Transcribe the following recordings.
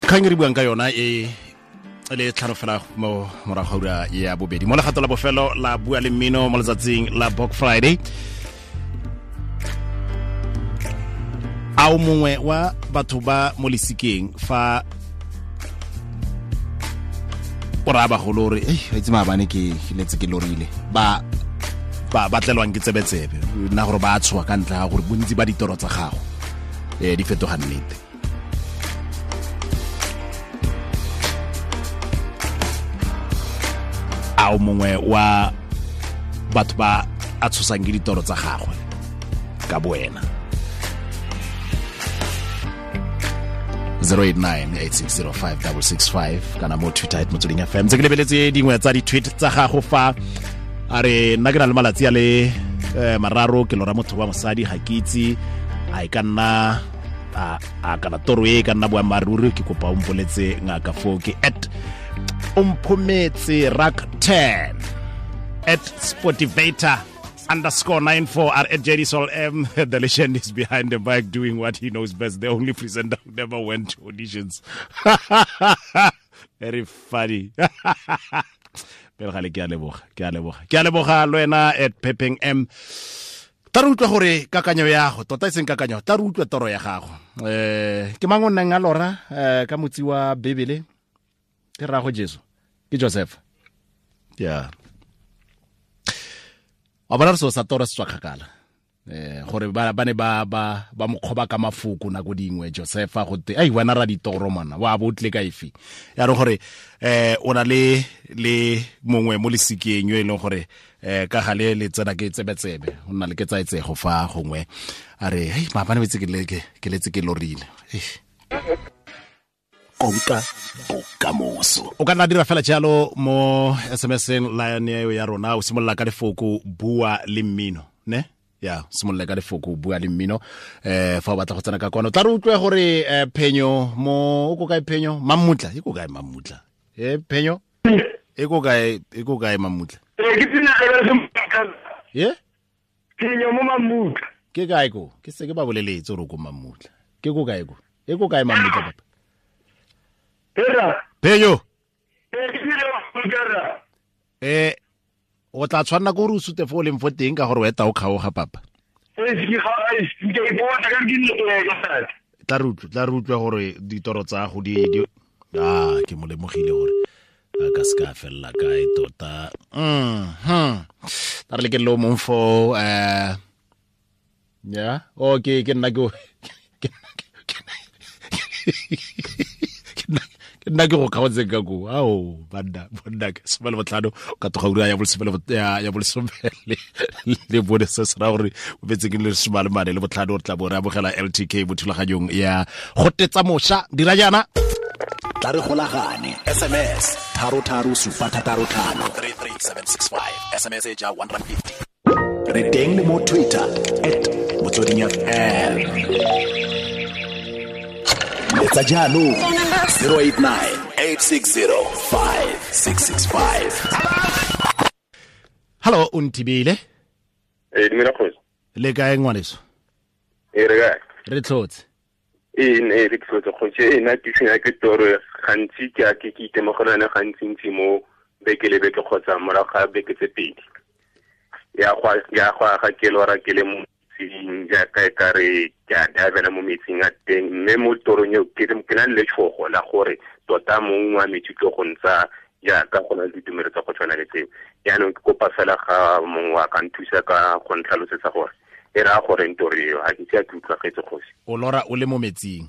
Kgang e re buang ka yona e le tlhano fela mo morago ga ura ya bobedi mo legato la bofelo la Bua le Mmino mo letsatsing la Bok Friday. A o mongwe wa batho ba mo lesikeng fa o raya bagolo gore ei, itse maabane ke letse ke lorile, ba ba ba tlelwang ke tsebetsebe nna gore ba tshoga ka ntlha ya gore bontsi ba ditoro tsa gago di fetoga nnete? A o mongwe wa batho ba a tshosang ke ditoro tsa gagwe ka boena? 089 8605665 kana mo Twitter @MotswedingFM. Tse ke lebeletse dingwe tsa di-tweet tsa gago fa, a re nna ke na le malatsi a le 3 ke lora motho wa mosadi, ga ke itse a e ka nna a kana toro e ka nna boammaaruri, ke kopa o mpoletse ngaka. Foo ke @Omphometse rak 10, @Sportivator_94 r @JDSol M, the legend is behind the mic doing what he knows best, the only presenter who never went to auditions. Very funny. Pele gale, ke a leboga, ke a leboga, ke a leboga le wena @Pepeng M. Tla re utlwa gore kakanyo ya gago tota, e seng kakanyo, tla re utlwa toro ya gago. Ke mang o nnang a lora ka motsi wa Bibele? Ke rrago Jesu, ke Joseph. Ya wa bona re seo sa toro se tswa kgakala, gore ba ne ba mokgoba ka mafoko nako dingwe Josefa, go te ai wena ra ditoro mana wa bo tle ka efe ya re gore o na le mongwe mo lesikeng yo e leng gore ka gale le tsena ke tsebetsebe, o nna le ke tsaetsego fa gongwe a re hei, maabane betse ke ke letse ke lorile. Konka bokamoso. O ka nna dira fela jalo mo SMS-eng line eo ya rona, o simolola ka lefoko Bua le Mmino, ne ya simolola ka lefoko Bua le Mmino. Fa o batla go tsena ka kwano, tla re utlwe gore Phenyo mo o ko kae? Phenyo Mammutla e ko kae? Mammutla e Phenyo e ko kae? E ko kae Mammutla? Ee, ke tsena ye. Phenyo mo Mammutla. Ke kae ko? Ke se ke ba boleletse gore ko Mammutla. Ke ko kae ko? E ko kae Mammutla, papa? Era. Phenyo. Ee, ke tsena Mammutla ra. O tla tshwanela ke gore o sute fo o leng fo teng ka gore o eta o kgaoga, papa. Ee, ke ga ai, ke ipona ka ke ne ke sa. Tla re utlwe gore ditoro tsa go di a ke mo lemogile gore a ka se ka felela kae tota. Tla re le ke lo mong fo ya o ke nna ke go kgaotseng ka ko ao banna bonna ke 15 ka toga ura ya bolesome ya 14. Se se raya gore o betse ke le 45, re tla bo re amogela LTK mo thulaganyong ya go tetsa mošwa. Dira jaana. Tla re golagane, SMS 33765 33765, SMS e ja 150. Re teng le mo Twitter @MotswedingFM. Letsa jaanong 089 860 5665. Hallo, o nthibile. Ee, dumela kgosi. Le kae, ngwaneso? Ee, re kae? Re tlhotse. Ee, ne re tlhotse, kgosi. Ee, nna ke tshwenya ke toro gantsi, ke a ke itemogela yone gantsi-ntsi mo beke le beke kgotsa morago ga beke tse 2. Ya go aga ke lora ke le mo metsing, jaaka e ka re ke a divela mo metsing a teng, mme mo torong eo ke na le letshogo la gore tota mong wa metsi tlo go ntsa, jaaka go na le ditumelo tsa go tshwana le tseo. Jaanong ke kopa fela ga mongwe wa ka nthusa ka go ntlhalosetsa gore e raya gore toro eo, ga ke ise a ke utlwagetse, kgosi. O lora o le mo metsing?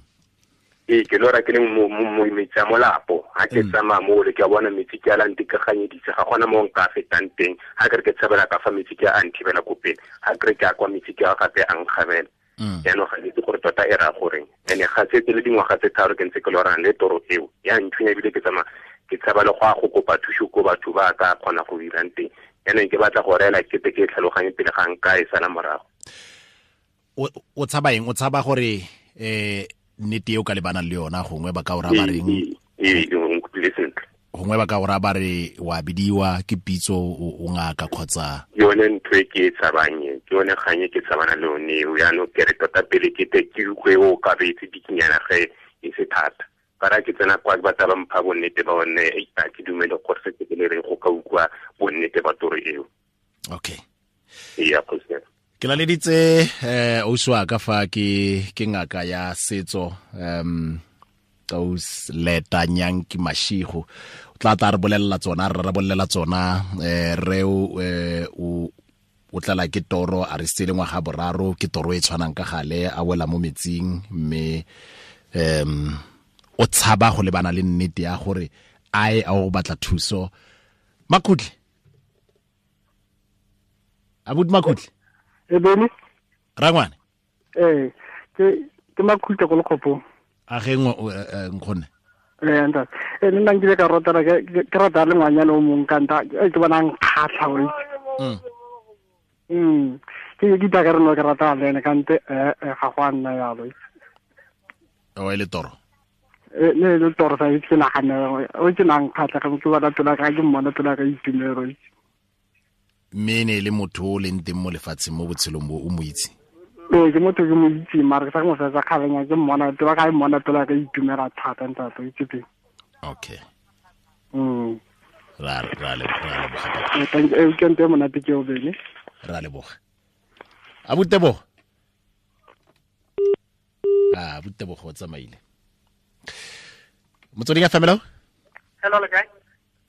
Ee, ke lora ke le mo metsi a molapo. Ga ke tsamaya mo le ke a bona metsi ke a la ntekaganyeditse, ga gona mo nka fetang teng. Ga ke re ke tshabela ka fa, metsi ke a nthibela ko pele. Ga ke re ke a kwa, metsi ke a gape a nkgabela. Jaanong ga ke itse gore tota e raya goreng, and-e ga setse le dingwaga tse 3 ke ntse ke lorang le toro eo, ya nthunya, ebile ke tsamaya ke tshaba le go a go kopa thuso ko batho ba ka kgona go dirang teng. Jaanong ke batla go reela kete ke e tlhaloganye pele ga nka e sala morago. O tshaba eng? O tshaba gore nnete eo ka lebanang le yona gongwe ba ka o raya ba reng? Ee, o nkutlwile sentle. Gongwe ba ka o raya ba re wa bidiwa ke pitso, o ngaka kgotsa? Yone ntho e ke e tshabang e, ke yone kgang e ke tshabana le yone eo. Jaanong ke re tota pele ke te ke utlwe o ka betse bikinyana ge e se thata. Ka ra ke tsena kwa ba tla ba mpha bonnete ba one, a ke dumele gore se ke le re go ka utlwa bonnete ba toro eo. Okay. Ya kgosi. Ke laleditse ausi wa ka fa ke ngaka ya setso, aus Leta Nyanki Mashigo. O tla re bolelela tsona, re bolelela tsona, re o tlala ke toro a re sele ngwaga boraro, ke toro e tshwanang ka gale, a wela mo metsing, mme o tshaba go lebana le nnete ya gore a o batla thuso. Makhutle. Abuti Makhutle. E bene? Rangwane. Ke Makhutle go lekgopo. A ge nkgonne. Ntate. Nna nkile ka rotela ke rata le ngwanyana o mongwe ka nta ke bona nkgatlha o itse. Ke ke ka re no ke rata le ene kante ga go a nna yalo. O e le toro. Ne le toro sa itse nagana o ke nang kgatlha ga ke bona tola ka ke mmona tola ka itumelo. Mme ne le motho o leng teng mo lefatsheng mo botshelong bo o mo itse. Ke motho ke mo itse mara ke sa mo fetsa kgabenya ke mmona tola ka mmona tola ka itumela thata ntate o itse teng. Okay. Ra leboga. Ke ntse monate ke o bene. Ra leboga. Abutebogo. Abutebogo o tsamaile. Motsweding ya family. Hello le kae?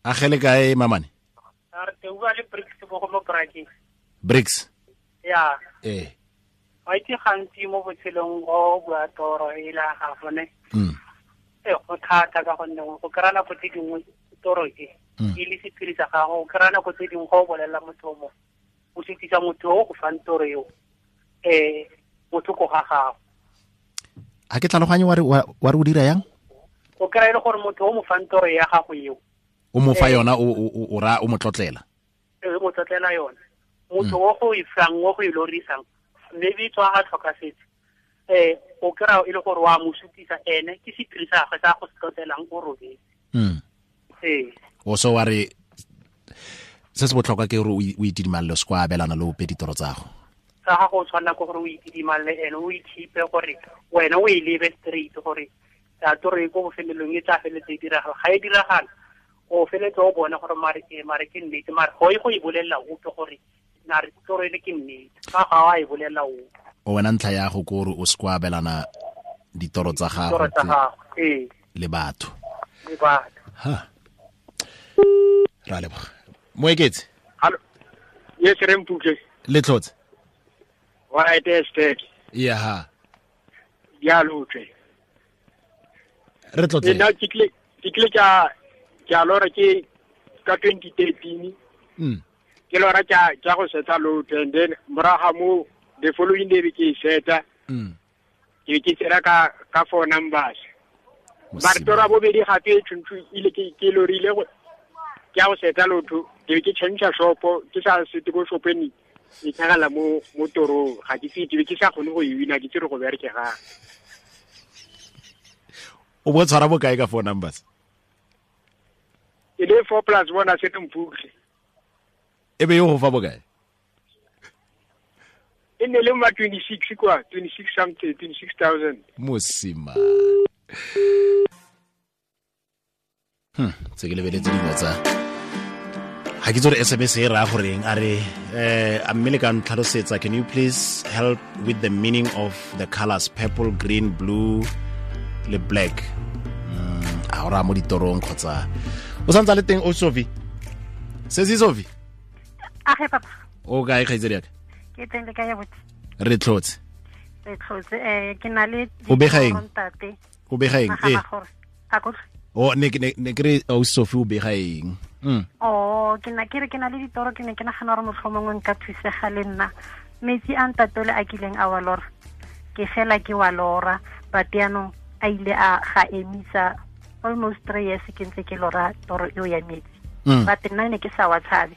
A gele kae mamane? Re te bua le Bricks bo go mo Brakeng. Bricks. Ya. Wa itse gantsi mo botshelong go bua toro e la ga gone. Go thata ka gonne go kry-a nako tse dingwe toro e e le sephiri sa gago, o kry-a nako tse dingwe go o bolelela motho o mongwe, o sutisa motho o go fang toro eo motho ko ga gago. A ke tlhaloganye wa re o dira yang? O kry-a e le gore motho o mo fang toro ya gago eo, o mo fa yona, o ra o mo tlotlela. O mo tlotlela yona. Motho o go e fang, o go e lorisang, maybe tswa a tlhokafetse. O kry-a e le gore wa mo sutisa ene, ke sephiri sa gagwe sa go se tlotlelang o robetse. O so wa re se se botlhokwa ke gore o itidimalele, o se kwa abelana le ope ditoro tsa gago. Tsa gago o tshwanela ke gore o itidimalele ene, o ikhipe gore wena o e lebe straight gore a toro e ko bofelelong e tla feletse e diragala. Ga e diragala, o feletse o bone gore mare ke nnete, mare go e go e bolelela ope gore nare toro e le ke nnete, ga ga wa e bolelela ope. O wena ntlha ya go kore o se kwa abelana ditoro tsa gago le batho. Le batho. Ha. Ra leboga. Moeketse. Hallo. Yes, re mpuke. Le tlotse. Wa eteste. Ya ha. Ya lotle. Re tlotse. Nna ke tle ka lora ke ka 2013. Ke lora ka go setsa lotle, and then moraga mo the following day ke seta. Ke tsera ka four numbers. Ba tora bobedi gape tshwantse ile ke lorile go ke a go seta lotho, ke change shopo, ke sa sete go shopeni e tlhagala mo torong, ga ke tsitse ke sa kgone go e wina, ke tsere go bereke ga. O bo tshwara bokae ka four numbers? E le 4 plus 1 a se mphutle. E be yo go fa bokae? E ne le ma 26 kwa, 26 something, 26,000. Mosima. Tse ke lebeletse dingwe tsa ga ke tsore SMS e raya goreng, a re a mme le ka ntlhalosetsa, can you please help with the meaning of the colors purple, green, blue le black? A o raya mo ditorong kgotsa o santse a le teng o Sophie? Sesi Sophie? Age papa. O kae kgaitsedi yaka? Ke teng le kae botse? Re tlotse. Re tlotse. Ke na le o bega eng? O bega eng? O ne ke re o Sophie o bega eng? Oh, ke na ke re ke na le ditoro, ke ne ke nagana gore motlhomongwe nka thusega le nna. Metsi a ntatole a kileng a wa lora, ke fela ke wa lora, but yaanong a ile a ga emisa almost 3 years ke ntse ke lora toro eo ya metsi. But nna ne ke sa wa tshabe.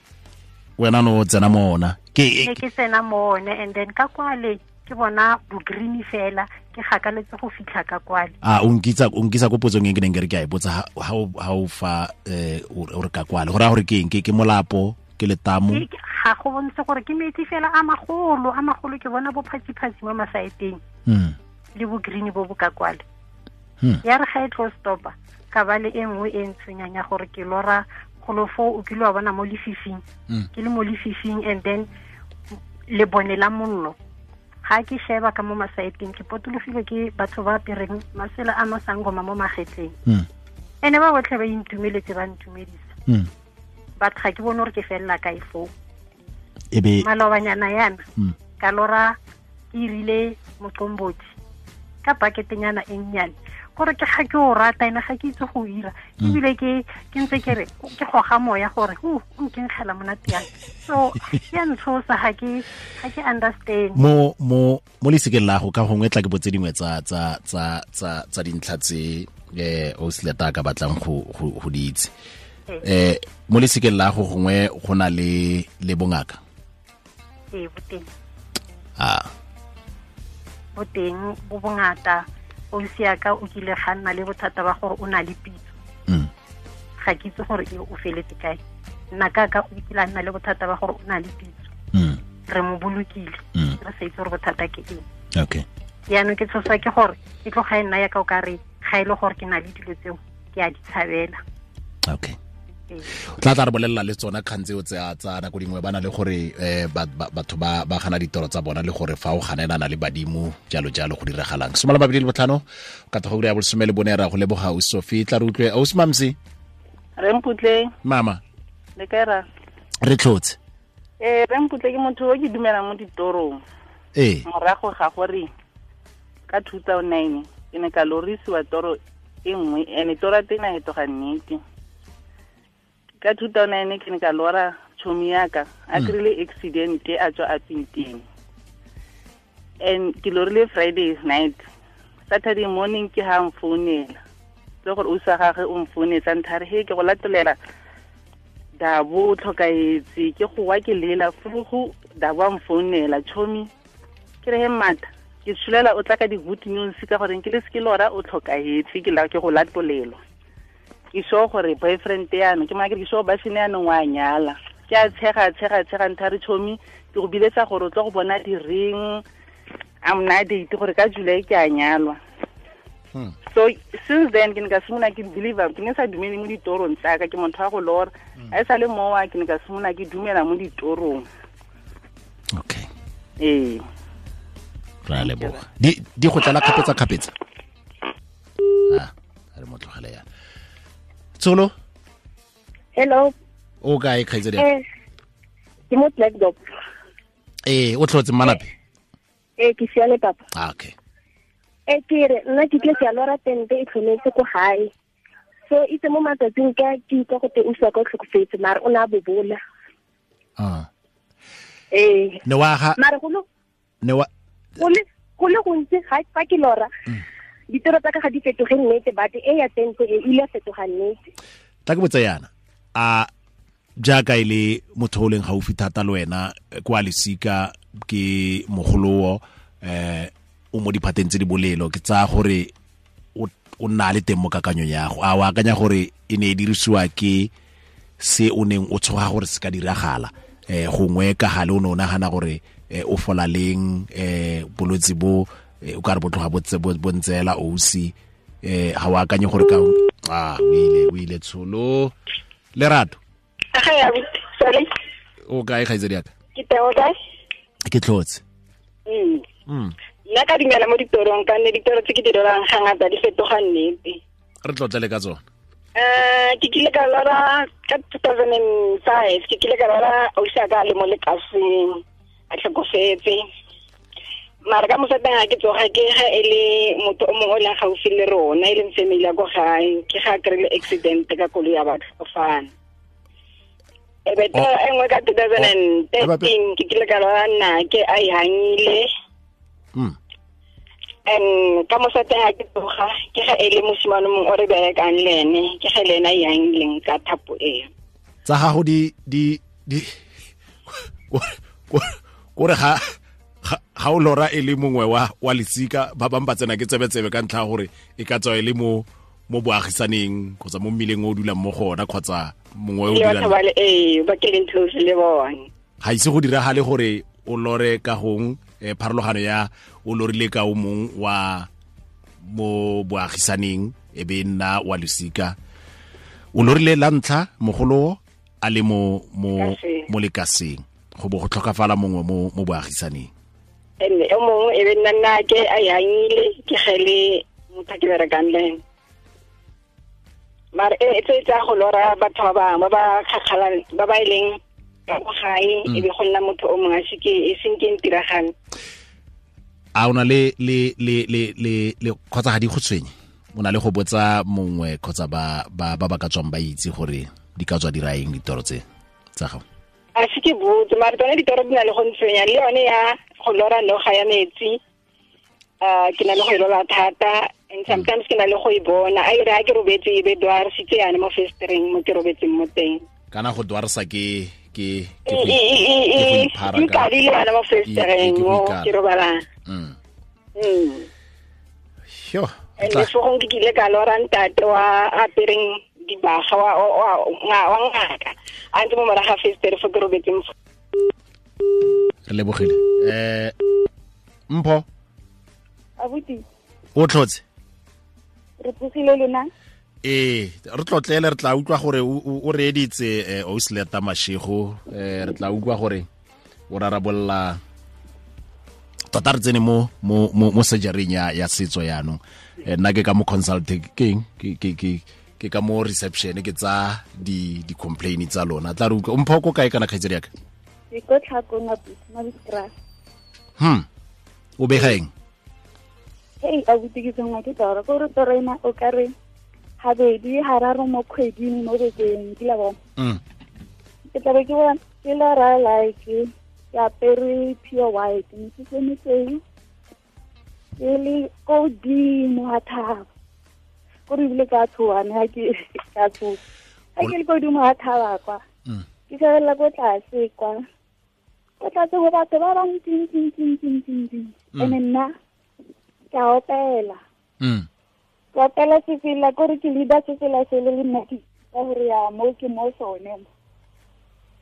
Wena no tsena mo ona. Ke tsena mo one, and then ka kwale ke bona bo green fela, ke gakaletse go fitlha ka kwale. A o nkitsa ko potsong e ke neng ke re ke a e botsa, ha o fa o re ka kwale, go raya gore ke eng? Ke molapo, ke letamo? Ga go bontshe gore ke metsi fela a magolo, ke bona bo phatsi-phatsi mo masaeteng. Le bo green bo bo ka kwale. Ya re ga e tlo stopa ka ba le e nngwe e ntshwenyang ya gore ke lora golo foo o kile wa bona mo lefifing. Ke le mo lefifing and then le bone la mollo. Ga ke sheba ka mo masaeteng ke potologile ke batho ba apereng masela a masangoma mo magetleng. Ene ba botlhe ba intumeletse ba ntumedisa. But ga ke bone gore ke felela kae foo. Ebe malobanyana yana ka lora ke irile moqombothi ka paketenyana e nnyane gore ke ga ke o rata ene ga ke itse go ira ebile ke ntse ke re ke goga moya gore o nkenkgela monate yang. So ya ntshosa ga ke understand. Mo lesikeng la go ka gongwe tla ke botse dingwe tsa dintlha tse o seleta ka batlang go di itse. Mo lesikeng la go gongwe go na le bongaka. Ee, boteng. Boteng bo bongata. O siaka o kile ga nna le bothata ba gore o na le pitso. Ga ke itse gore o feletse kae. Nna ka o kile a nna le bothata ba gore o na le pitso. Re mo bolokile. Re sa itse gore bothata ke eng. Okay. Yaanong ke tshosa ke gore e tloga e nna ya ka o ka re ga e le gore ke na le dilo tseo ke a di tshabela. Okay. Tla re bolelela le tsona kgang tseo tsa nako dingwe ba na le gore batho ba gana ditoro tsa bona le gore fa o ganelana le badimo jalo jalo go diragalang. 25 ka tloga ura ya 14 ra go leboga o Sophie. Tla re utlwe o Mamsi. Re Mputle. Mama. Le kae ra? Re tlhotse. Re Mputle ke motho o ke dumelang mo ditorong. Morago ga gore ka 2009 ke ne ka lorisiwa toro e nngwe ene toro ya teng a fetoga nnete. Ka 2009 ke ne ka lora chomi yaka a kry-ile accident a tswa a pinteng. And ke lorile Friday night. Saturday morning ke ha mfounela. Le gore o sa gagwe o mfounetsa nthare he ke go latolela Dabo o tlhokaetse ke go wa ke lela furugu Dabo a mfounela chomi ke re he mata ke tshulela o tla ka di-good news ka gore ke le se ke lora o tlhokaetse ke la ke go latolelwa. Ke sure gore boyfriend yana ke maka ke sure ba sene yana wa nyala ke a tshega nthare chomi ke go biletsa gore o tlo go bona di ring I'm not date gore ka July ke a nyalwa. So since then ke ne ka simolola ke believe ke ne sa dumele mo ditorong tsaka ke motho wa go lora a sa le mowa ke ne ka simolola ke dumela mo ditorong. Okay. Ra leboga. Di go tlala kgapetsa. Re mo tlogele yana. Tsolo. Hello. O kae kgaitsedi? Ke mo Blackdog. O tlhotse mmanape? Ke siale papa. Okay. Ke re nna ke tle ke a lora tente e tlhometse ko gae. So itse mo matsatsing ka ke utlwa gote o swa ka tlhokofetse mare o ne a bobola. Ne wa ga mare go le gontsi ga fa ke lora. Ditoro tsa ka ga di fetoge nnete but e ya tente e ile fetoga nnete. Tla ke botsa yana a jaaka e le motho o leng gaufi thata le wena kwa lesika ke mogolowo o mo diphateng tse di bolelo ke tsaya gore o nna le teng mo kakanyong ya go a o akanya gore e ne e dirisiwa ke se o neng o tshoga gore se ka diragala gongwe ka gale o ne o nagana gore o fola leng bolwetse bo o ka re bo tloga bo ntseela ousi ga o akanye gore ka o ile tsholo. Lerato. Sorry. O kae kgaitsedi yaka? Ke teng, o kae? Ke tlhotse. Nna ka dumela mo ditorong ka nne ditoro tse ke di lorang ga ngata di fetoga nnete. Re tlotle le ka tsone. Ke kile ka lora ka 2005 ke kile ka lora ausi a ka le mo lekaseng a tlhokofetse. Mara ka mosateng ga ke tsoga ke ga e le motho o mongwe o leng gaufi le rona e leng family ya ko gae ke ga kry-ile accident ka koloi ya batho fana. E be e nngwe ka 2013 ke kile ka lora nna ke a e hangile. And ka mosateng ga ke tsoga ke ga e le mosimane mongwe o re berekang le ene ke ga le ene a e hangileng ka thapo eo. Tsa gago di kore ga ga o lora e le mongwe wa lesika ba bang ba tsena ke tsebetsebe ka ntlha gore e ka tswa e le mo boagisaneng kgotsa mo mmileng o dulang mo gona kgotsa mongwe o dulang ba ke leng close le bone. Ga ise go diragale gore o lore ka gong pharologano ya o lorile ka o mong wa mo boagisaneng e be nna wa losika. O lorile la ntlha mogolo a le mo lekaseng go bo go tlhokafala mongwe mo boagisaneng. Ene o mongwe e be nna nna ke a yangile ke gele motho ke berekang le ene. Mare e tse tsa go lora batho ba bangwe ba ba kgakgalang ba ba ileng ka go gae e be go nna motho o mongwe a se ke e seng ke ntiragalo. A o na le kgotsa ga di go tshwenye? O na le go botsa mongwe kgotsa ba ba ka tswang ba itse gore di ka tswa di raeng ditoro tse tsa gago? A se ke botse, mare tsone ditoro di na le go ntshwenya, le yone ya go lora noga ya metsi ke na le go e lora thata, and sometimes ke na le go e bona a ire ha ke robetse e be dwarsitse yane mo festereng mo ke robetseng mo teng. Kana go dwarsa ke go iphara ka le yone mo festereng mo ke robalang. Yo, le fo ke kile ka lora ntate wa apereng dibaga wa ngaka a ntse mo moraga festere fo ke robetseng. Re lebogile. Mpho abuti o tlotse? Re tsogile lona? Ee, re tlotlele, re tla utlwa gore o reeditse Ausleta Mashego, re tla utlwa gore o rarabolla tota re tsene mo surgery ya setso yaanong. Nna ke ka mo consulting ke ka mo reception ke tsa di complain tsa lona. Tla re utlwa Mpho ko kae kana kgaitsedi yaka? Ke ko Tlhakong abuti, Mabiskraal. O bega eng? Hey, abuti ke tsengwa ke toro, gore toro ena o ka re habedi hararo mo kgweding mo bekeng, ke la bona. Ke tla be ke bona ke lora like ke apere pure white, mesese mesweu, ke le ko godimo ga thaba. Kore ebile ka tshoga ne ha ke ka tshoga. Ha ke le ko godimo ga thaba kwa, ke shebelela ko tlase kwa. Ko tlase go batho ba bantsi. Ene nna ke a opela. Ke opela sefela, kore ke leader sefela sele le nna ke ka gore ya mo ke mo sone.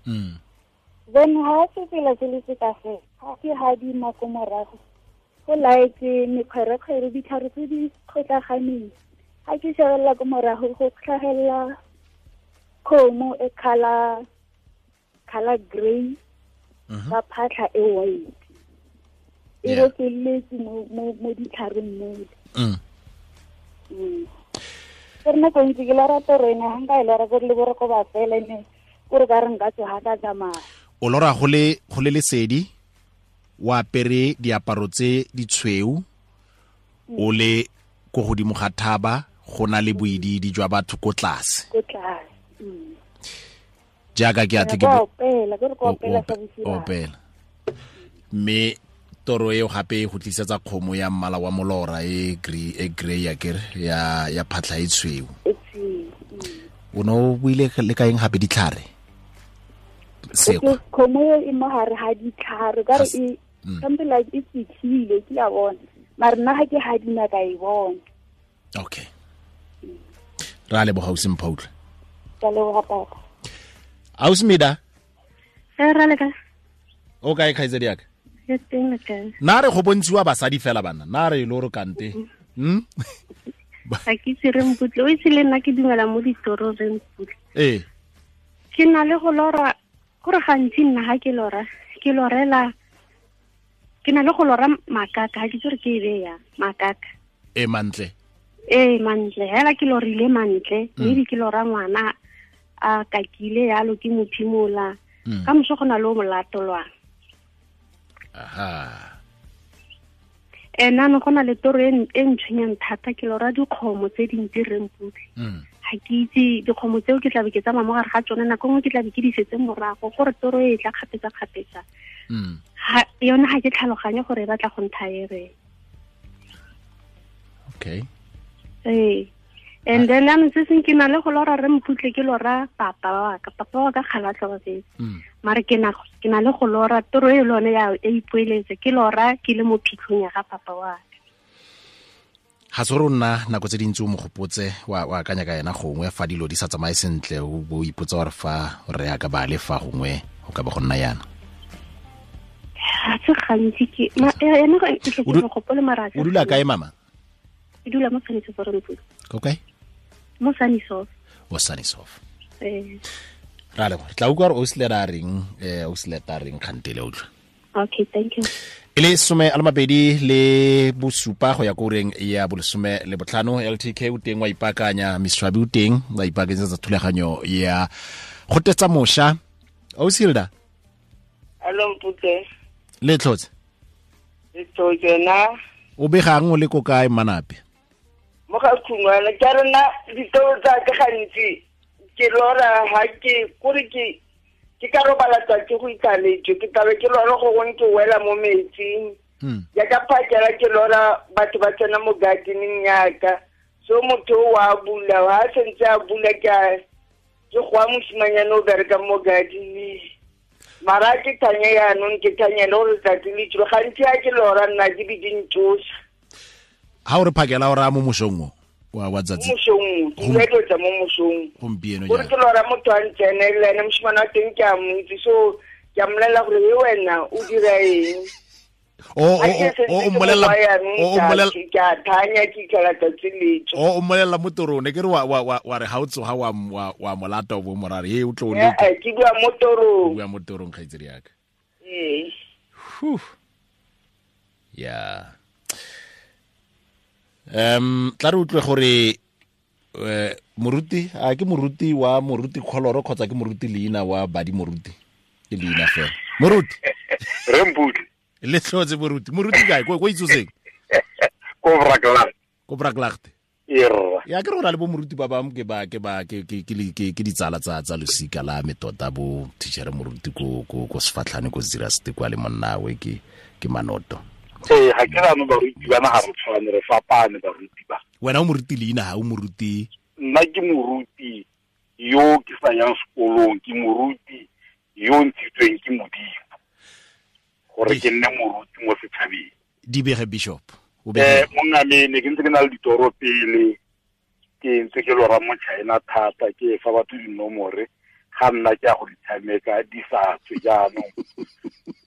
Then ha sefela se le se ka fela, ha ke hadima ko morago go like mekgwerekgwere ditlhare tse di kgotlaganeng. Ha ke shebelela ko morago go tlhagelela kgomo e color grey ka phatlha e white. E rokeletse mo ditlhareng mole. Ke re nako ntsi ke lora toro ena, ha nka e lora kore le boroko ba fela ene kore ka re nka tsoga ka tsamaya. O lora go le lesedi, o apere diaparo tse ditshweu, o le ko godimo ga thaba, go na le boididi jwa batho ko tlase. Ko tlase. Jaaka ke atle ke opela, ke re ko opela sa bosigo. Opela. Mme toro eo gape e go tlisetsa kgomo ya mmala wa molora e grey ya kere ya phatlha e tshweu. O ne o buile le ka eng gape ditlhare? Sekgwa. Kgomo e mo gare ga ditlhare, ka re e something like e fitlhile, ke a bona. Mare nna ga ke hadima ka e bona. Okay. Ra leboga ausi Mpho utlwe. Ka leboga papa. Ausi Mida. Ra le ka. O kae kgaitsedi yaka? Ke teng le kae? Na re go bontshiwa basadi fela bana, na re lo re kante. Ga ke itse re Mputle, o itse le nna ke dumela mo ditoro re Mputle. Ee. Ke na le go lora, gore gantsi nna ga ke lora, ke lorela, ke na le go lora makaka, ga ke itse gore ke e be yang, makaka. E mantle. Ee, mantle, hela ke lorile mantle, maybe ke lora ngwana a kakile yalo ke mo phimola. Ka moso go na le o molatolwang. Aha. Ena no go na le toro e ntshwenyang thata, ke lora dikgomo tse dintsi re Mputle. Ga ke itse dikgomo tseo ke tla be ke tsamaya mo gare ga tsone, nako nngwe ke tla be ke di setse morago gore toro e tla kgapetsa-kgapetsa. Yone ga ke tlhaloganye gore e batla go ntha e reng. Okay. Ee. And then jaanong se seng ke na le go lora re Mputle, ke lora papa wa ka, papa wa ka kgale a tlhokafetse. Mare ke na le go lora toro e le yone ya e ipoeletse, ke lora ke le mo phitlhong ya ga papa wa ka. Ga se gore o nna nako tse dintsi o mo gopotse, wa akanya ka ena gongwe fa dilo di sa tsamaye sentle, o bo ipotsa gore fa re ya ka ba le fa gongwe go ka ba go nna yana. Ga se gantsi ke ene ke tle ke mo gopole mara. O dula kae mama? Ke dula mo Sannieshof Rantlo. Ko kae? Mo Sannieshof. O Sannieshof. Eh. Ra le tla utlwa gore Ausileta a reng, Ausileta a reng kgantele utlwa. Okay, thank you. E le 27 go ya ko ureng ya bo 15 LTK o teng wa ipaakanya, Miswabi o teng wa ipaakanyetsa thulaganyo ya go tetsa mosha. Ausilda. Hello Mputse. Le tlhotse. Le tlhotse na. O begang o le ko kae Manape? Mo ga khungwana ke rena ditoro tsa ka gantsi ke lora ha ke kore ke ka robala tsatsi go ikaletse ke tlabe ke lora go gongwe ke wela mo metsing. Ya ka phakela ke lora batho ba tsena mo gardening yaka. So motho wa bula ha sentse a bula ke go mosimanyana o bereka mo gardening. Mara ke thanya yaanong ke thanya le gore letsatsi le tsile gantsi ha ke lora nna ke be di ntsosa. Ha o re phakela o raya mo mosong o wa tsatsi? Mosong, ke tlo mo mosong. Gompieno jaana. Gore ke lora motho a ntsenele ene mosimane wa teng ke a mo itse, so ke a mmolelela gore he wena o dira eng. O mmolelela ke a thanya ke itlhela tsatsi le tswa. O mmolelela mo torong, ne ke re wa re ha o tsoga wa molata o bo morare he o tlo o leka. Ke bua mo torong. O bua mo torong kgaitsedi yaka. Ee. Ya. Tla re utlwe gore moruti a ke moruti wa moruti Kholoro kgotsa ke moruti leina wa badi moruti ke leina fela. Moruti. Re Mputle. Le tlhotse moruti. Moruti kae ko itsoseng? Ko Braklaagte. Ko Braklaagte. Erra. Ya ke rona le bo moruti ba bang ke ba ke ba ke ke ke ditsala tsa losika la me tota bo teacher moruti ko ko ko Sefatlhane ko Ziraste kwa le monnawe ke Manoto. Ee, ga ke rano baruti bana ga re tshwane, re fapane baruti ba. Wena o moruti leina ha o moruti? Nna ke moruti yo ke sa yang sekolong, ke moruti yo ntshitsweng ke Modimo gore ke nne moruti mo setšhabeng. Di bege bishop. Monna me ne ke ntse ke na le ditoro pele, ke ntse ke lora mo China thata, ke fa batho dinomore ga nna ke a go di tshameka di sa tswe jaanong.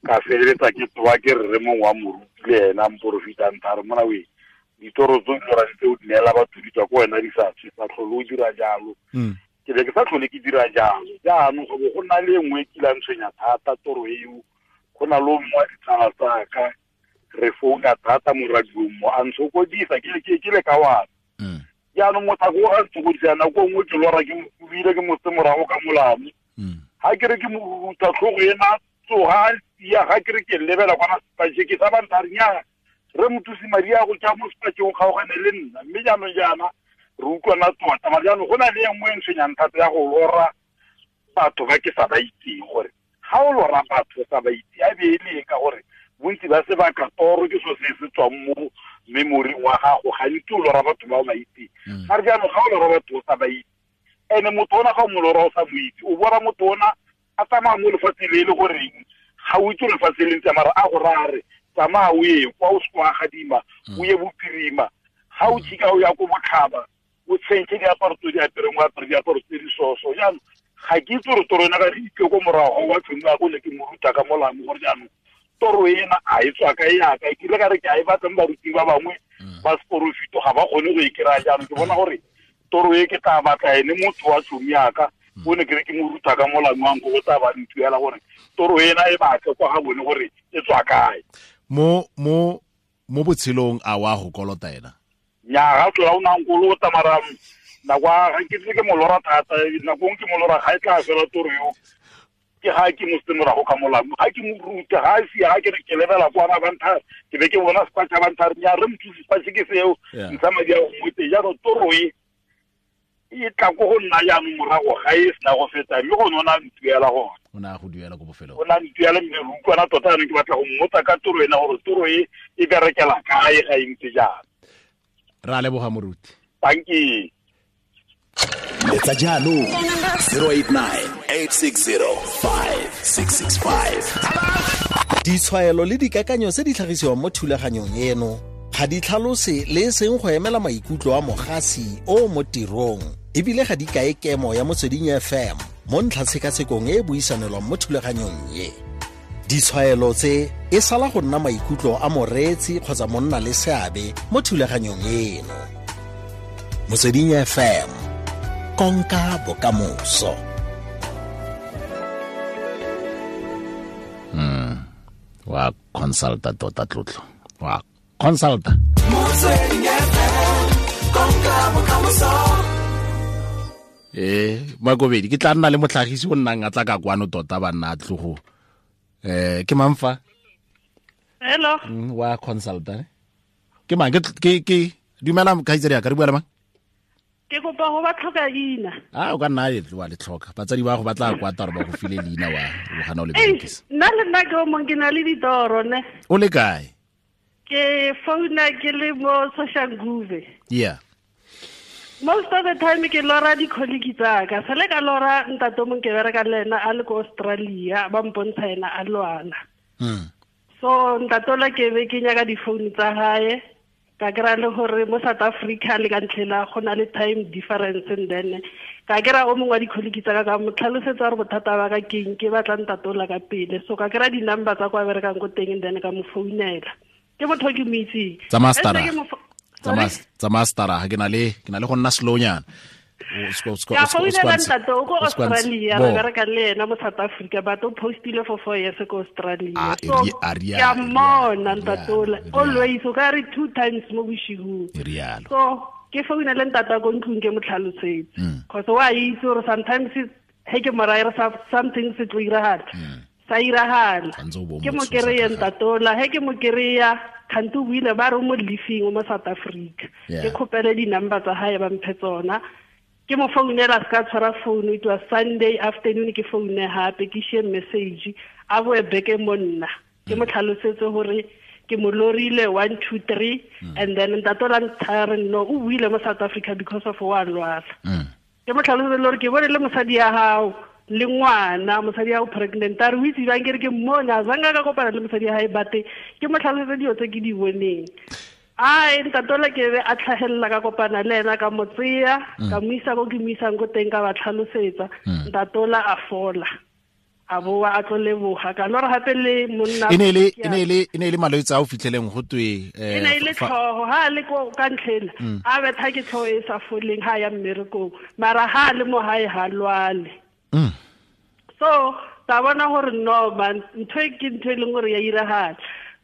Ka feleletsa ke tsoa ke rre mongwe wa moruti le ena mporofita ntha re mona we ditoro tse di lorang tse o di neela batho di tswa ko wena di sa tswe, sa tlhole o dira jalo. Ke be ke sa tlhole ke dira jalo jaanong go bo go nna le e nngwe e kilang tshwenya thata toro eo. Go na le o mongwe wa ditsala tsaka re founa thata mo radiong mo a ntshokodisa ke le ka wana. Jaanong mothako o a ntshokodisa nako nngwe ke lora ke mokubile ke motse morago ka molamo. Ha ke re ke mo ruta tlhogo ena tsoga ya ga ke re ke lebela kwana sepatše ke sa bantha re nyaa re mothusi madi a go tša mo sepatšeng o kgaogane le nna mme jaanong jaana re utlwana tota. Mare jaanong go na le e nngwe e ntshwenyang thata ya go lora batho ba ke sa ba itseng, gore ga o lora batho sa ba itse a be e le ka gore bontsi ba sebaka toro ke so se se tswang mo memory wa gago, gantsi o lora batho ba o ba itseng. Mare jaanong ga o lora batho o sa ba itse, ene motho ona ga o mo lora o sa mo itse, o bona motho ona a tsamaya mo lefatsheng le e le goreng ga o itse lefatshe le ntse mara a go raya re tsamaya o ye kwa o se kwa gadima o ye bophirima, ga o tšhika o ya ko botlhaba o tshentšhe diaparo tse di apereng o apere diaparo tse di soso. Jaanong ga ke itse gore toro ena ga re itse ko morago wa tšhomi wa ko ne ke mo ruta ka molamo gore jaanong toro ena a e tswa kae yaka e kile ka re ke a e batla mo baruting ba bangwe ba seporofito ga ba kgone go e kry-a. Jaanong ke bona gore toro e ke tla batla ene motho wa tšhomi yaka o ne ke re ke mo ruta ka molamo wa nko go tla ba ntuela gore toro ena e batle kwa ga bone gore e tswa kae. Mo mo mo botshelong a wa go kolota ena? Nya ga tlola o na nkolota mara nako ga ke tle ke mo lora thata, nako ke mo lora ga e tla fela toro eo ke ga ke mo se morago ka molamo ga ke mo ruta ga se ga ke re ke lebela kwa ba bantha ke be ke bona sepatša bantha re nya re mothusi sepatše ke seo ntsha madi a go mote. Jaanong toro e e tla ko go nna jaanong morago ga e sena go feta mme gone o na ntuela gone. O na go duela ko bofelong. O na ntuela mme re utlwana tota jaanong ke batla go mmotsa ka toro ena gore toro e e berekela kae ga e ntse jaana. Ra leboga moruti. Thank you. Letsa jaanong 089 860 5665. Ditshwaelo le dikakanyo tse di tlhagisiwang mo thulaganyong eno ga di tlhalose le e seng go emela maikutlo a mogasi o mo tirong, ebile ga di kae kemo ya Motsweding FM mo ntlhatshekasekong e e buisanelwang mo thulaganyong e. Ditshwaelo tse e sala go nna maikutlo a moreetsi kgotsa monna le seabe mo thulaganyong eno. Motsweding FM, konka bokamoso. Wa consulta tota tlotlo. Wa consulta. Motsweding FM, konka bokamoso. Makobedi ke tla nna le motlhagisi o nnang a tla ka kwano tota ba nna tlogo. Ke mang fa? Hello. Wa consulta. Ke mang ke dumela khaitsedi ya ka re bua le mang? Ke kopa go ba tlhoka leina. Ah, o ka nna e wa le tlhoka. Batsadi ba go batla kwa taro ba go file leina wa o gana o le berekisa. Nna le nna ke o mong ke na le ditoro ne. O le kae? Ke founa ke le mo Soshanguve. Yeah. Most of the time ke lora di-colleague tsaka. Sale ka lora ntate o mong ke bereka le ena a le ko Australia, ba mpontsha ena a lwala. So ntatola ke be ke nyaka di-phone tsa hae. Ka kry-a le gore mo South Africa le ka ntlhela go na le time difference, and then ka kry-a o mongwe wa di-colleague tsaka ka mo tlhalosetsa gore bothata ba ka keng, ke batla ntatola ka pele. So ka kry-a di-number tsa kwa berekang ko teng, and then ka mo founela. Ke motho o ke mo itseng. Tsa mastera ke na le go nna slownyana. Ka founela ntate o ko Australia, re bereka le ena mo South Africa, but o postile for 4 years ko Australia. So ke a mmona ntatola always, o ka re 2 times mo boshigong. So ke founela ntate ko ntlong ke mo tlhalosetse, cause wa itse gore sometimes he ke mo raya something se tlo iragala, sa iragala. Ke mo kry-e ntatola, he ke mo kry-a kgante o buile ba re mo leafing mo South Africa. Ke kgopele di-number tsa hae ba mphe tsona. Ke mo founela se ka tshwara phone, it was Sunday afternoon, ke foune hape ke share message a boe beke mo nna. Ke mo tlhalosetse gore ke mo lorile 1 2 3, and then ntatola nthare no o buile mo South Africa because of wa lwala. Ke mo tlhalosetse gore ke bone le mosadi ya hao le ngwana, mosadi ya o pregnant, a re o itse bang ke re ke mmona zanga ka kopana le mosadi ya hae, bate ke mo tlhalosetse dilo tse ke di boneng. Ai ntatola ke be a tlhagelela ka kopana le ena ka mo tseya, ka mo isa ko ke mo isang ko teng, ka ba tlhalosetsa. Ntatola a fola, a boa a tlo leboga. Ka lora gape le monna e ne le malwetse a o fitlheleng go twe e ne le tlhogo ha le ko ka ntlhela a betha ke tlhogo e sa foleng ha ya mmerekong, mara ha le mo hae ha lwale. So ta bona gore no man, ntho e ke ntho e leng gore ya iragala.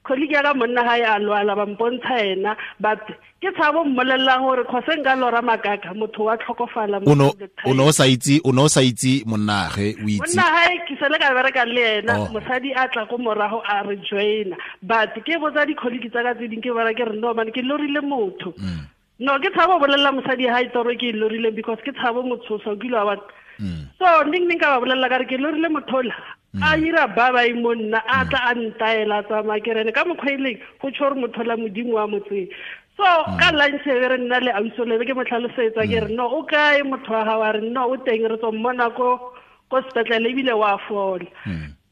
Colleague ya ka monna hae a lwala, ba mpontsha ena, but ke tshabo mmolelela gore kgose nka lora makaka motho wa tlhokofala. O no sa itse monnagwe, o itse monna hae ke sele ka bereka le ena, mosadi a tla ko morago a re joina, but ke botsa di-colleague tsa ka tse ding, ke bona ke re no man ke lorile motho. No ke tshabo bolelela mosadi hae toro ke e lorileng, because ke tshabo motshosa o kile wa bona. So ning ka ba bolelela ka re ke lorile mothola a ira ba ba mo nna a tla a ntaela tsamaya ke rene ka mokgwa e leng go tsho gore mothola modimo wa motseng. So ka lunch e re nna le ausolebe ke mo tlhalosetsa ke re no o kae motho wa gago, a re no o teng re tswa mmona ko sepetlele ebile wa fola.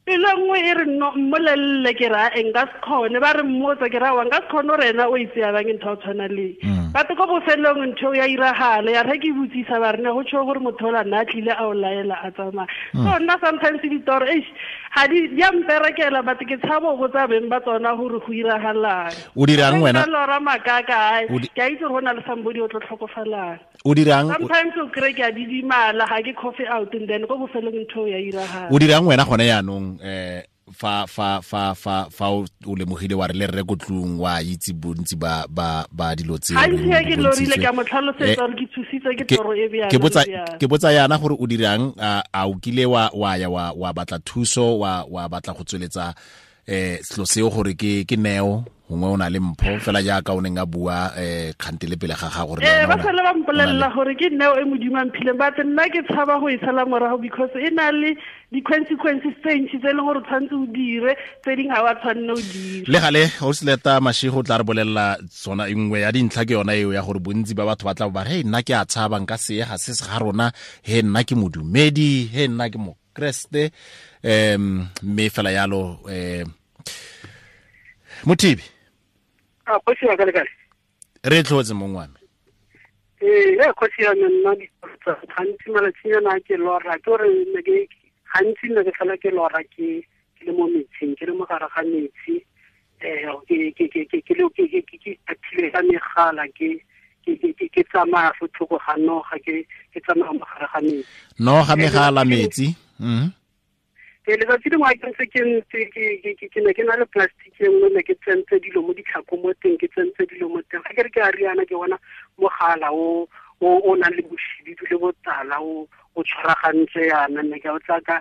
Pelo nngwe e re no mmolelele ke ra e nka se kgone, ba re mmotsa ke ra wa nka se kgone gore ena o itse ya bang ntho ya tshwana le. But ko bofelong ntho ya iragala, ya re ke botsisa ba re ne go tsho gore motho ola nna a tlile a o laela a tsamaya. So nna sometimes ditoro eish ga di ya mperekela, but ke tshabo go tsa beng ba tsona gore go iragalang. O dirang wena? Lora makaka ke a itse gore go na le somebody o tlo tlhokofalang. O dirang? Sometimes o kry ke a didimala ga ke coffee out, and then ko bofelong ntho ya iragala. O dirang wena gone yaanong fa fa fa fa fa o lemogile wa re le rre ko tlung wa itse bontsi ba ba ba dilo tse ha ke lorile ka mo tlhalosetsa gore ke thusitse ke toro e bjang. Ke botsa yana gore o dirang, a o kile wa ya wa batla thuso, wa batla go tsweletsa selo seo gore ke neo gongwe o na le mpho fela jaaka o neng a bua kgante le pele ga gago gore ba sale ba mpolelela gore ke neo e modimo a mphileng, but nna ke tshaba go e sala morago because e na le di-consequences tse ntši tse e leng gore o tshwanetse o dire, tse dingwe ga wa tshwanne o dire. Le gale Ausileta Mashego o tla re bolelela tsona nngwe ya dintlha ke yona eo ya gore bontsi ba batho ba tla ba re nna ke a tshaba nka se ga se se ga rona, he nna ke modumedi, he nna ke mokreste, mme fela yalo Mothibi. A kgosi ya ka le kae? Re tlhotse mong wa me. Ee, kgosi ya me nna gantsi malatsinyana ke lora ke gore ne ke gantsi ne ke tlhola ke lora ke ke le mo metsing, ke le mo gare ga metsi, ke athile ka megala, ke tsamaya fo thoko ga noga, ke tsamaya mo gare ga metsi. Noga, megala, metsi. Letsatsi lengwe ke ntse ke ne ke na le plastic e nngwe, ne ke tsentse dilo mo ditlhako mo teng, ke tsentse dilo mo teng. Ga ke re ke a riana, ke bona mogala o nang le boshibidu le botala o tshwaragantse yana, ne ke o tla ka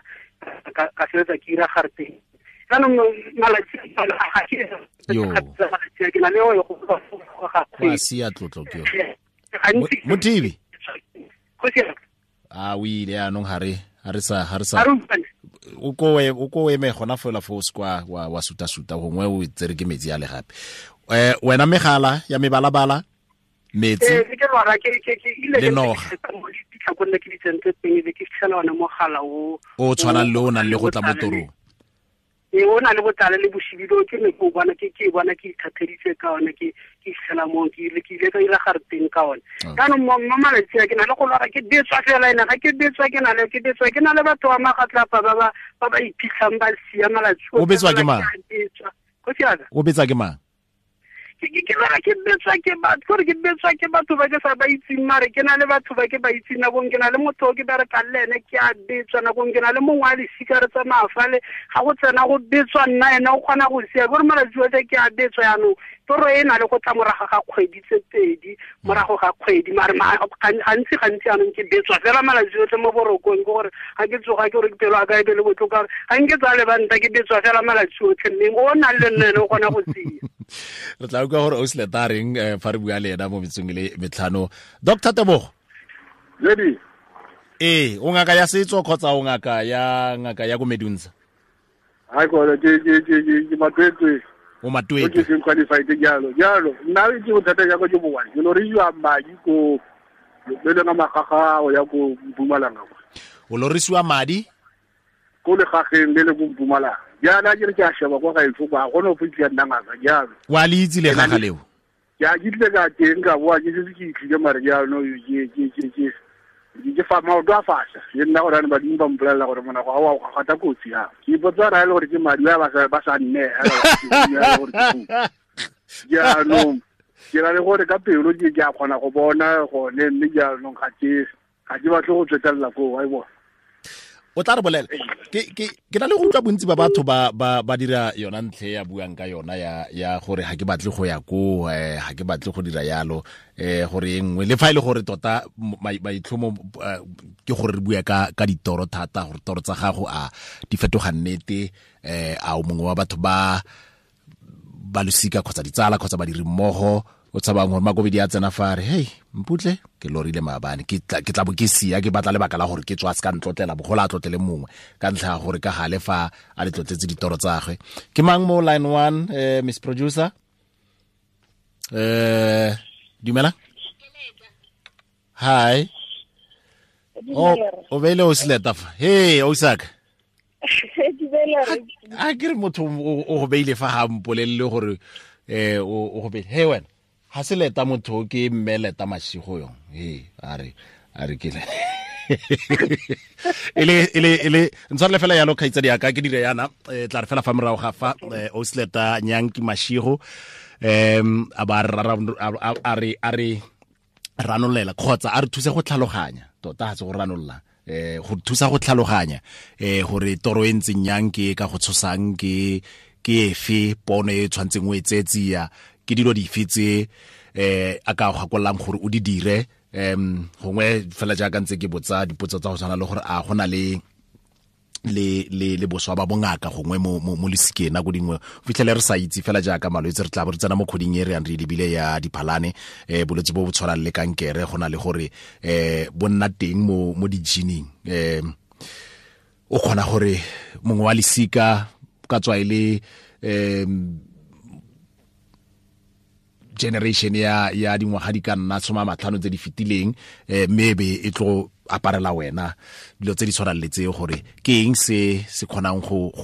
sebetsa ke ira gare teng. Jaanong malatsi ga ke ke na le o go ga kgwedi. Sia tlotlo ke yo. Mothibi. A o ile anong ha re sa o ko eme gona fela fo skwa wa suta suta gongwe o tsere ke metsi a le gape. Wena megala ya mebalabala, metsi. Ke lwara ke ile le noga. Ditlhako nne ke di tsentse teng, be ke fitlhela ona mogala o tshwanang le o nang le go tla mo torong. O na le botlale le boshibido, ke ne ke bona ke ithatheditse ka one, ke fitlhela mo ke ile ka ira gare teng ka one. Jaanong mo malatsi a ke na le go lwara, ke betswa fela ene, ga ke betswa ke na le ke betswa ke na le batho ba magatlapa ba ba iphitlhang ba sia malatsi. O betswa ke mang? O betsa ke mang? Ke lwara ke betswa ke batho, gore ke betswa ke batho ba ke sa ba itseng, mare ke na le batho ba ke ba itseng. Nakong ke na le motho o ke berekang le ene, ke a betswa. Nakong ke na le mongwe a lesika re tsamaya fale, ga go tsena go betswa nna, ene o kgona go sia. Gore malatsi otlhe ke a betswa. Jaanong toro e na le go tla morago ga kgwedi tse pedi, morago ga kgwedi, mare gantsi jaanong ke betswa fela malatsi otlhe mo borokong. Ke gore ga ke tsoga ke gore ke pelo ya ka e be le botlhoko, gore ga nke tsa lebanta, ke betswa fela malatsi otlhe, mme o nang le nna ene o kgona go sia. Re tla utlwa gore o seleta reng fa re bua le ena mo metsong le metlhano. Dr. Tebogo. Lady. O ngaka ya setso kgotsa o ngaka ya ko Medunsa? Ha ko ke matwetwe. O matwetwe. Ke qualified jalo. Jalo nna ke bothata ja go ke bowa. Ke lorisiwa madi ko le lena magaga o ya ko Mpumalanga. O lorisiwa madi? Ko le gageng le le ko Mpumalanga. Jaana ke re ke a sheba kwa gaetsho kwa, ga gona go fitlha nna ngaka jalo. Wa le itse le gaga leo? Ke a ke tle ka teng ka boa, ke setse ke itlhile, mare jaanong ke fa maoto a fasha. Le nna gore ane badimo ba mpolelela gore monago ga wa go gata kotsi ya. Ke ipotsa ra e le gore ke madi a ba sa nne gore jaanong ke na le gore ka pelo ke a kgona go bona gone, mme jaanong ga ke batle go tswetelela koo, wa e bona. O tla re bolela. Ke na le go utlwa bontsi ba batho ba dira yona ntlhe ya buang ka yona ya gore ga ke batle go ya ko, ga ke batle go dira yalo, gore e nngwe le fa e le gore tota maitlhomo ke gore re bua ka ditoro thata, gore toro tsa gago a di fetoga nnete, a o mongwe wa batho ba losika kgotsa ditsala kgotsa badiri mmogo o tshabang gore makobedi a tsena fa re, hey Mputle ke lorile maabane, ke tla bo ke sia, ke batla lebaka la gore ke tswa se ka ntlotlela, bogolo a tlotlele mongwe ka ntlha ya gore ka gale fa a le tlotletse ditoro tsa gagwe. Ke mang mo line 1, Miss Producer? Dumela. Hi. O beile o seleta fa. Hey, Osaka. A ke re motho o go beile fa ga mpolelele gore o go beile. Hey wena. Ha se leta motho ke mme leta mashigo yong. He a re ke le. Ele ntshwarele fela yalo kgaitsadi ya ka ke dire yana, tla re fela fa morago ga fa o seleta Nyanki Mashigo, a ba a re ranolela kgotsa a re thuse go tlhaloganya tota, ga se go ranolla, go thusa go tlhaloganya gore toro e ntseng yang, ke ka go tshosang, ke efe pono e tshwantseng o e tsetsia, ke dilo dife tse a ka go gakolang gore o di dire. Gongwe fela jaaka ntse ke botsa dipotso tsa go tshwana le gore a go na le boswa ba bongaka gongwe mo lesikeng nako dingwe fitlhele re sa itse fela jaaka malwetse re tla bo re tsena mo kgoding e re yang re lebile ya diphalane, bolwetse bo bo tshwanang le kankere go na le gore bo nna teng mo di-gening, o kgona gore mongwe wa lesika ka tswa e le generation ya dingwaga di ka nna 50 tse di fetileng, mme be e tlo aparela wena dilo tse di tshwanang le tseo, gore ke eng se se kgonang go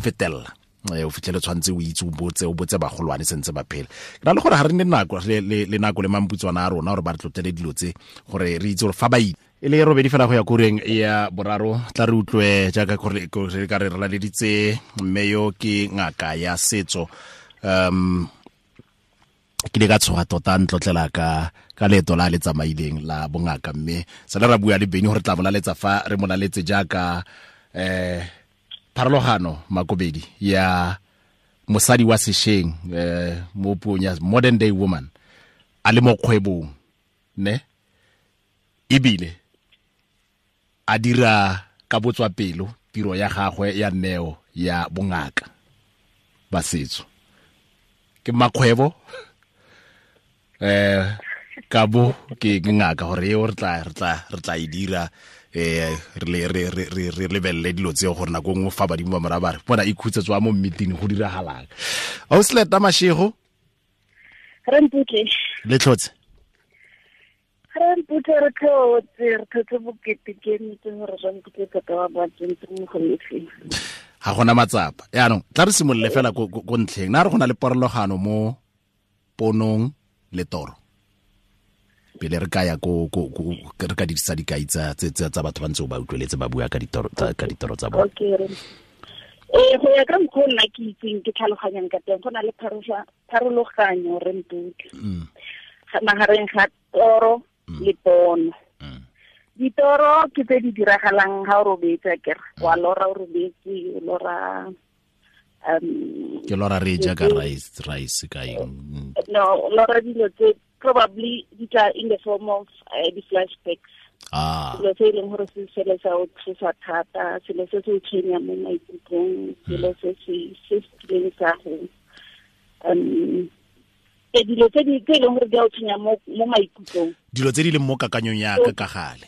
fetella. O fitlhele tshwantse o itse o botse bagolwane sentse ba phela. Ke na le gore ga re nne nako le nako le mamputswana a rona gore ba re tlotlele dilo tse gore re itse gore fa ba itse e le robedi fela go ya koreng ya boraro tla re utlwe jaaka gore re ka re laleditse mme yo ke ngaka ya setso. Ke le ka tshoga tota ntlotlela ka leeto la le tsamaileng la bongaka, mme sala ra bua le Beni gore tla molaletsa fa re molaletse jaaka pharologano Makobedi ya mosadi wa sesheng mo puong ya modern day woman a le mo kgwebong ne ebile a dira ka botswapelo tiro ya gagwe ya neo ya bongaka ba setso. Ke makgwebo ka bo ke ngaka gore eo re tla e dira re lebelele dilo tseo gore nako nngwe fa badimo ba mora ba re bona ikhutse tswa mo meeting go diragalang. Ausleta Mashego, re mputle le tlhotse. Re mputle re tlhotse bokete ke nnete gore re mputle tota wa ba tsentse mo go lefeng. Ga gona matsapa. Yaanong tla re simolole fela ko ntlheng. Na re go na le porologano mo ponong le toro pele re ka ya ko re ka dirisa dikai tsa batho ba ntse ba utlweletse ba bua ka ditoro tsa bone. Okay. Go ya ka mokgwa nna ke itseng ke tlhaloganyang ka teng, go na le pharologanyo re mputle magareng ga toro le pono. Ditoro ke tse di diragalang ga o robetse, akere wa lora o robetse, o lora ke lora re ja ka rice ka eng? No, lora dilo tse probably di tla in the form of di flashbacks. Selo se e leng gore se sele sa o tshosa thata, selo se se o tshwenyang mo maikutlong, selo se se kileng sa go dilo tse di e leng gore di a o tshwenya mo maikutlong, dilo tse di leng mo kakanyong ya ka ka gale,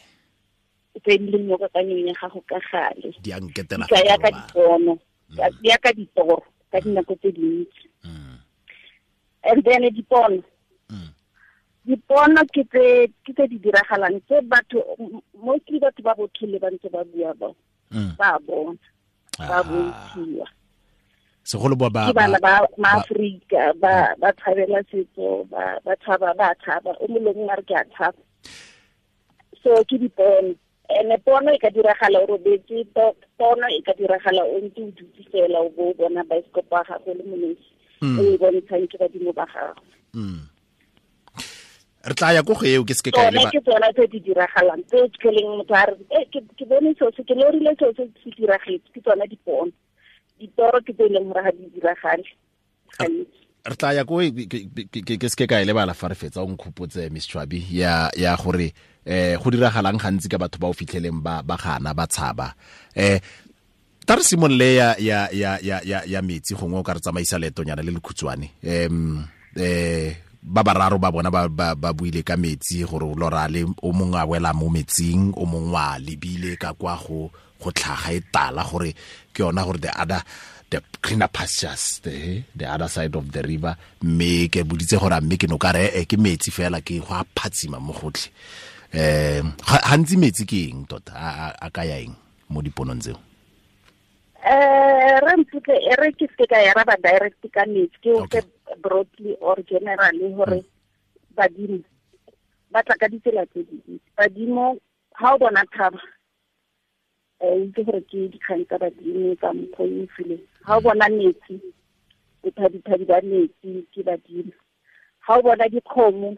tse di leng mo kakanyong ya gago ka gale di a nketela ya ka dipono, ya ka ditoro ka dinako tse dintsi. And then dipono, dipono ke tse di diragalang tse batho mostly batho ba botlhole ba ntse ba bua ba ba bona ba bontshiwa, segolo ba ba bana ba maAfrika ba tshabela setso, ba tshaba o molong a re ke a tshaba. So ke dipono. Ene pono e ka diragala o robetse, pono e ka diragala o ntse o dutse fela o bo bona baesekopo ya gago le monesi o e bontshang ke badimo ba gago. Re tla ya ko go eo ke seke ka e ke tsona tse di diragalang tse tleleng motho a re ke bone seo se ke lorile seo se se diragetse, ke tsona dipono. Ditoro ke tse e leng gore ga di diragale gantsi. Re tla ya ko ke seke ka e lebala fa re fetsa o nkhopotse Miss Chwabi ya gore go diragalang gantsi ka batho ba o fitlheleng ba gana ba tshaba. Tla re simolole ya metsi gongwe o ka re tsamaisa leetonyana le lekhutshwane. Ba bararo ba bona ba buile ka metsi gore lora le o mongwe a wela mo metsing, o mongwe a lebile ka kwa go tlhaga e tala gore ke yona gore the greener pastures, the other side of the river, mme ke boditse gore mme ke no ka re ke metsi fela ke go a phatsima mo gotlhe. Gantsi metsi ke eng tota a ka ya eng mo diponong tseo? Re mputle e re ke se ka ya raba direct ka metsi, ke o ke broadly or generally gore badimo ba tla ka ditsela tse dintsi. Badimo ha o bona thaba itse gore ke dikgang tsa badimo tsa mokgwa o fileng. Ha o bona metsi, bophadiphadi ba metsi ke badimo. Ha o bona dikgomo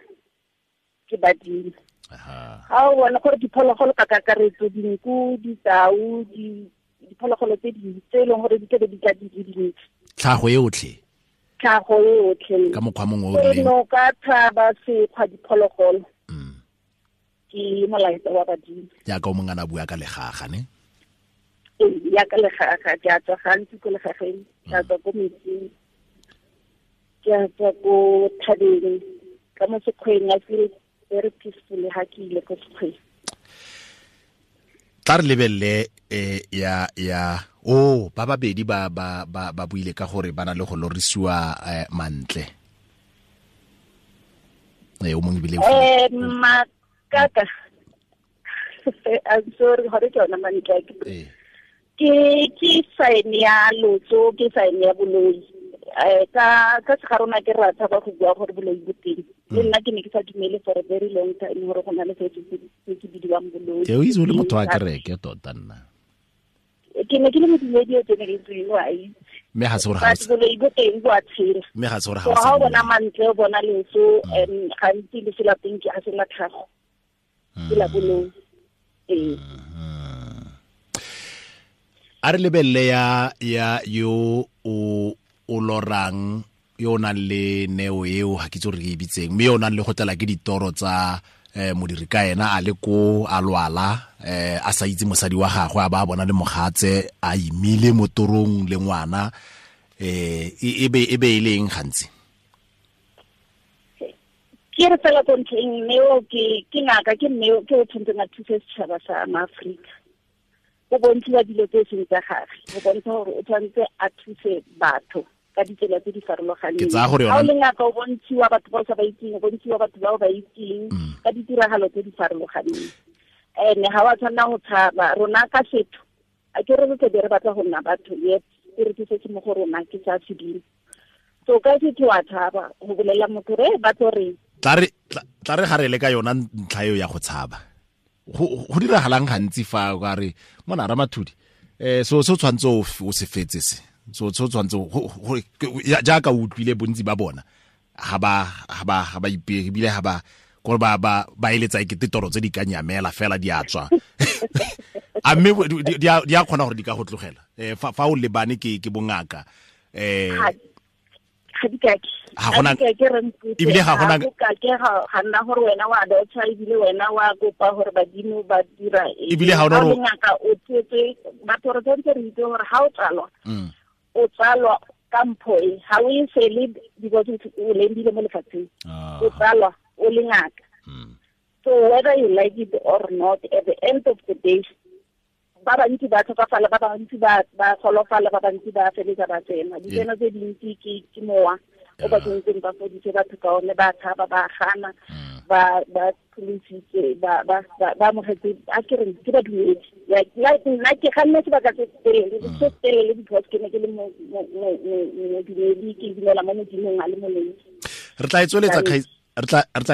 ke badimo. Ha o bona gore diphologolo ka kakaretso, dinku, ditau, diphologolo tse dintsi tse e leng gore di tlabe di tla di le dintsi, tlhago e otlhe ka mokgwa mongwe o rileng, noka, thaba, sekgwa, diphologolo ke molaetsa wa badimo. Jaaka o mongwe a bua ka legaga ne? Ee, ya ka legaga, ke a tswa gantsi ko legageng, ke a tswa ko metsing, ke a tswa ko thabeng, ka mo sekgweng. I feel very peaceful ha ke ile ko sekgweng. Tla re lebelele ya ba babedi ba ba buile ka gore ba na le go lorisiwa mantle. O mongwe ebile makaka I'm sorry gore ke yona mantle. Ke sign ya lotso, ke sign ya boloi. Ka se ga rona ke rata ba go bua gore boloi bo teng. Le nna ke ne ke sa dumele for a very long time gore go na le se se bidiwang boloi. Ke o itse o le motho wa kereke tota nna. Ke ne ke le modumedi o tseneletseng, wa itse. Mme ga se gore ga boloi bo teng bo a tshela. Mme ga se gore ga o bona mantle, o bona leso, gantsi leso la teng ke a se la tlhago. Ke la boloi. Ee. A re lebelele ya yo o lorang, yo o nang le neo eo, ga ke itse gore ke e bitseng, mme yo o nang le go tlala ke ditoro tsa modiri ka ena a le ko a lwala, a sa itse mosadi wa gagwe, a ba bona le mogatse a imile mo torong le ngwana, e be e leng gantsi. Ke re fela ko ntlheng, neo ke ngaka, ke neo ke o tshwanetseng a thuse setšhaba sa maAforika. O bontshiwa dilo tse seng tsa gagwe, o bontsha gore o tshwanetse a thuse batho ka ditsela tse di farologaneng. Ke tsaya gore Ha o le ngaka, o bontshiwa batho ba o sa ba itseng, o bontshiwa batho ba o ba itseng ka ditiragalo tse di farologaneng. Ene ga wa tshwanela go tshaba. Rona ka setho, a ke re re tle re batla go nna batho, yet ke re ke se se mo go rona ke sa sedimo. So ka setho wa tshaba go bolela motho re ba tlo reng. Tla re ga re le ka yona ntlha eo ya go tshaba. Go diragalang gantsi fa o ka re mona Ramathodi, so se tshwanetse o se fetse se. So tshwanetse jaaka o utlwile bontsi ba bona ga ba ipege, ebile ga ba gore ba eletsa ekete toro tse di ka nyamela fela di a tswa. A mme di a kgona gore di ka go tlogela fa o lebane ke bongaka. Ga di kake. Ebile ga gona ke ga nna gore wena wa dotsa, ebile wena wa kopa gore badimo ba dira eng. Ebile ga ona gore ngaka o tsetse batho, re tshwanetse re itse gore ga o tsalwa, o tsalwa ka mpho e, ga o e sele because o lembile mo lefatsheng, o tsalwa o le ngaka. So whether you like it or not, at the end of the day, ba bantsi ba tlhokafala, ba bantsi ba golofala, ba bantsi ba feletsa ba tsena. Ditseno tse dintsi ke mowa o ba tsentseng ba fodise batho ka one, ba tshaba, ba gana, ba pholositse, ba amogetse, a ke reng ke badumedi. Like nna ke ganne sebaka se telele because ke ne ke le modumedi, ke dumela mo Modimong a le molemo. Re tla e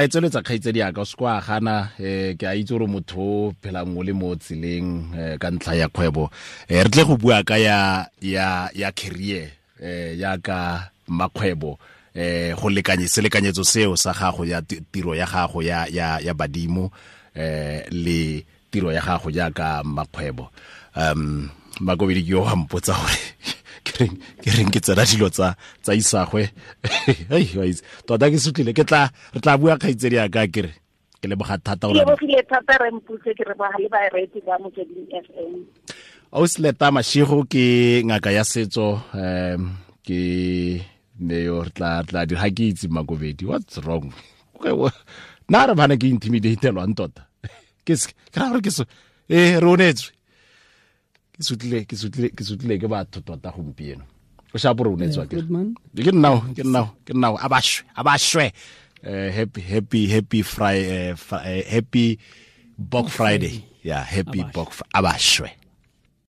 tsweletsa kgaitsedi yaka, o se kwa gana. Ke a itse gore motho o phelang o le mo tseleng ka ntlha ya kgwebo. Re tle go bua ka ya career ya ka makgwebo, go lekanye selekanyetso seo sa gago ya tiro ya gago ya badimo, le tiro ya gago jaaka makgwebo. Makobedi ke yo wa mpotsa gore ke reng ke tsena dilo tsa isagwe. Hei, wa itse tota ke sutlile, ke tla re tla bua kgaitsedi yaka, ke re ke leboga thata gore ke lebogile thata re mputse, ke re ba le bareetsi ba Motsweding FM. Ausi Letta Mashego ke ngaka ya setso, ke ne yo re tla dira ga ke itse Makobedi, what's wrong? Nna re bana ke intimidatelwang tota. Ke ra gore ke so re onetswe. Ke sutlile ke batho tota gompieno. O shapo re onetswe ke. Ke nna a ba shwe. Happy Friday, happy Bok Friday. Yeah, happy Bok, a ba shwe.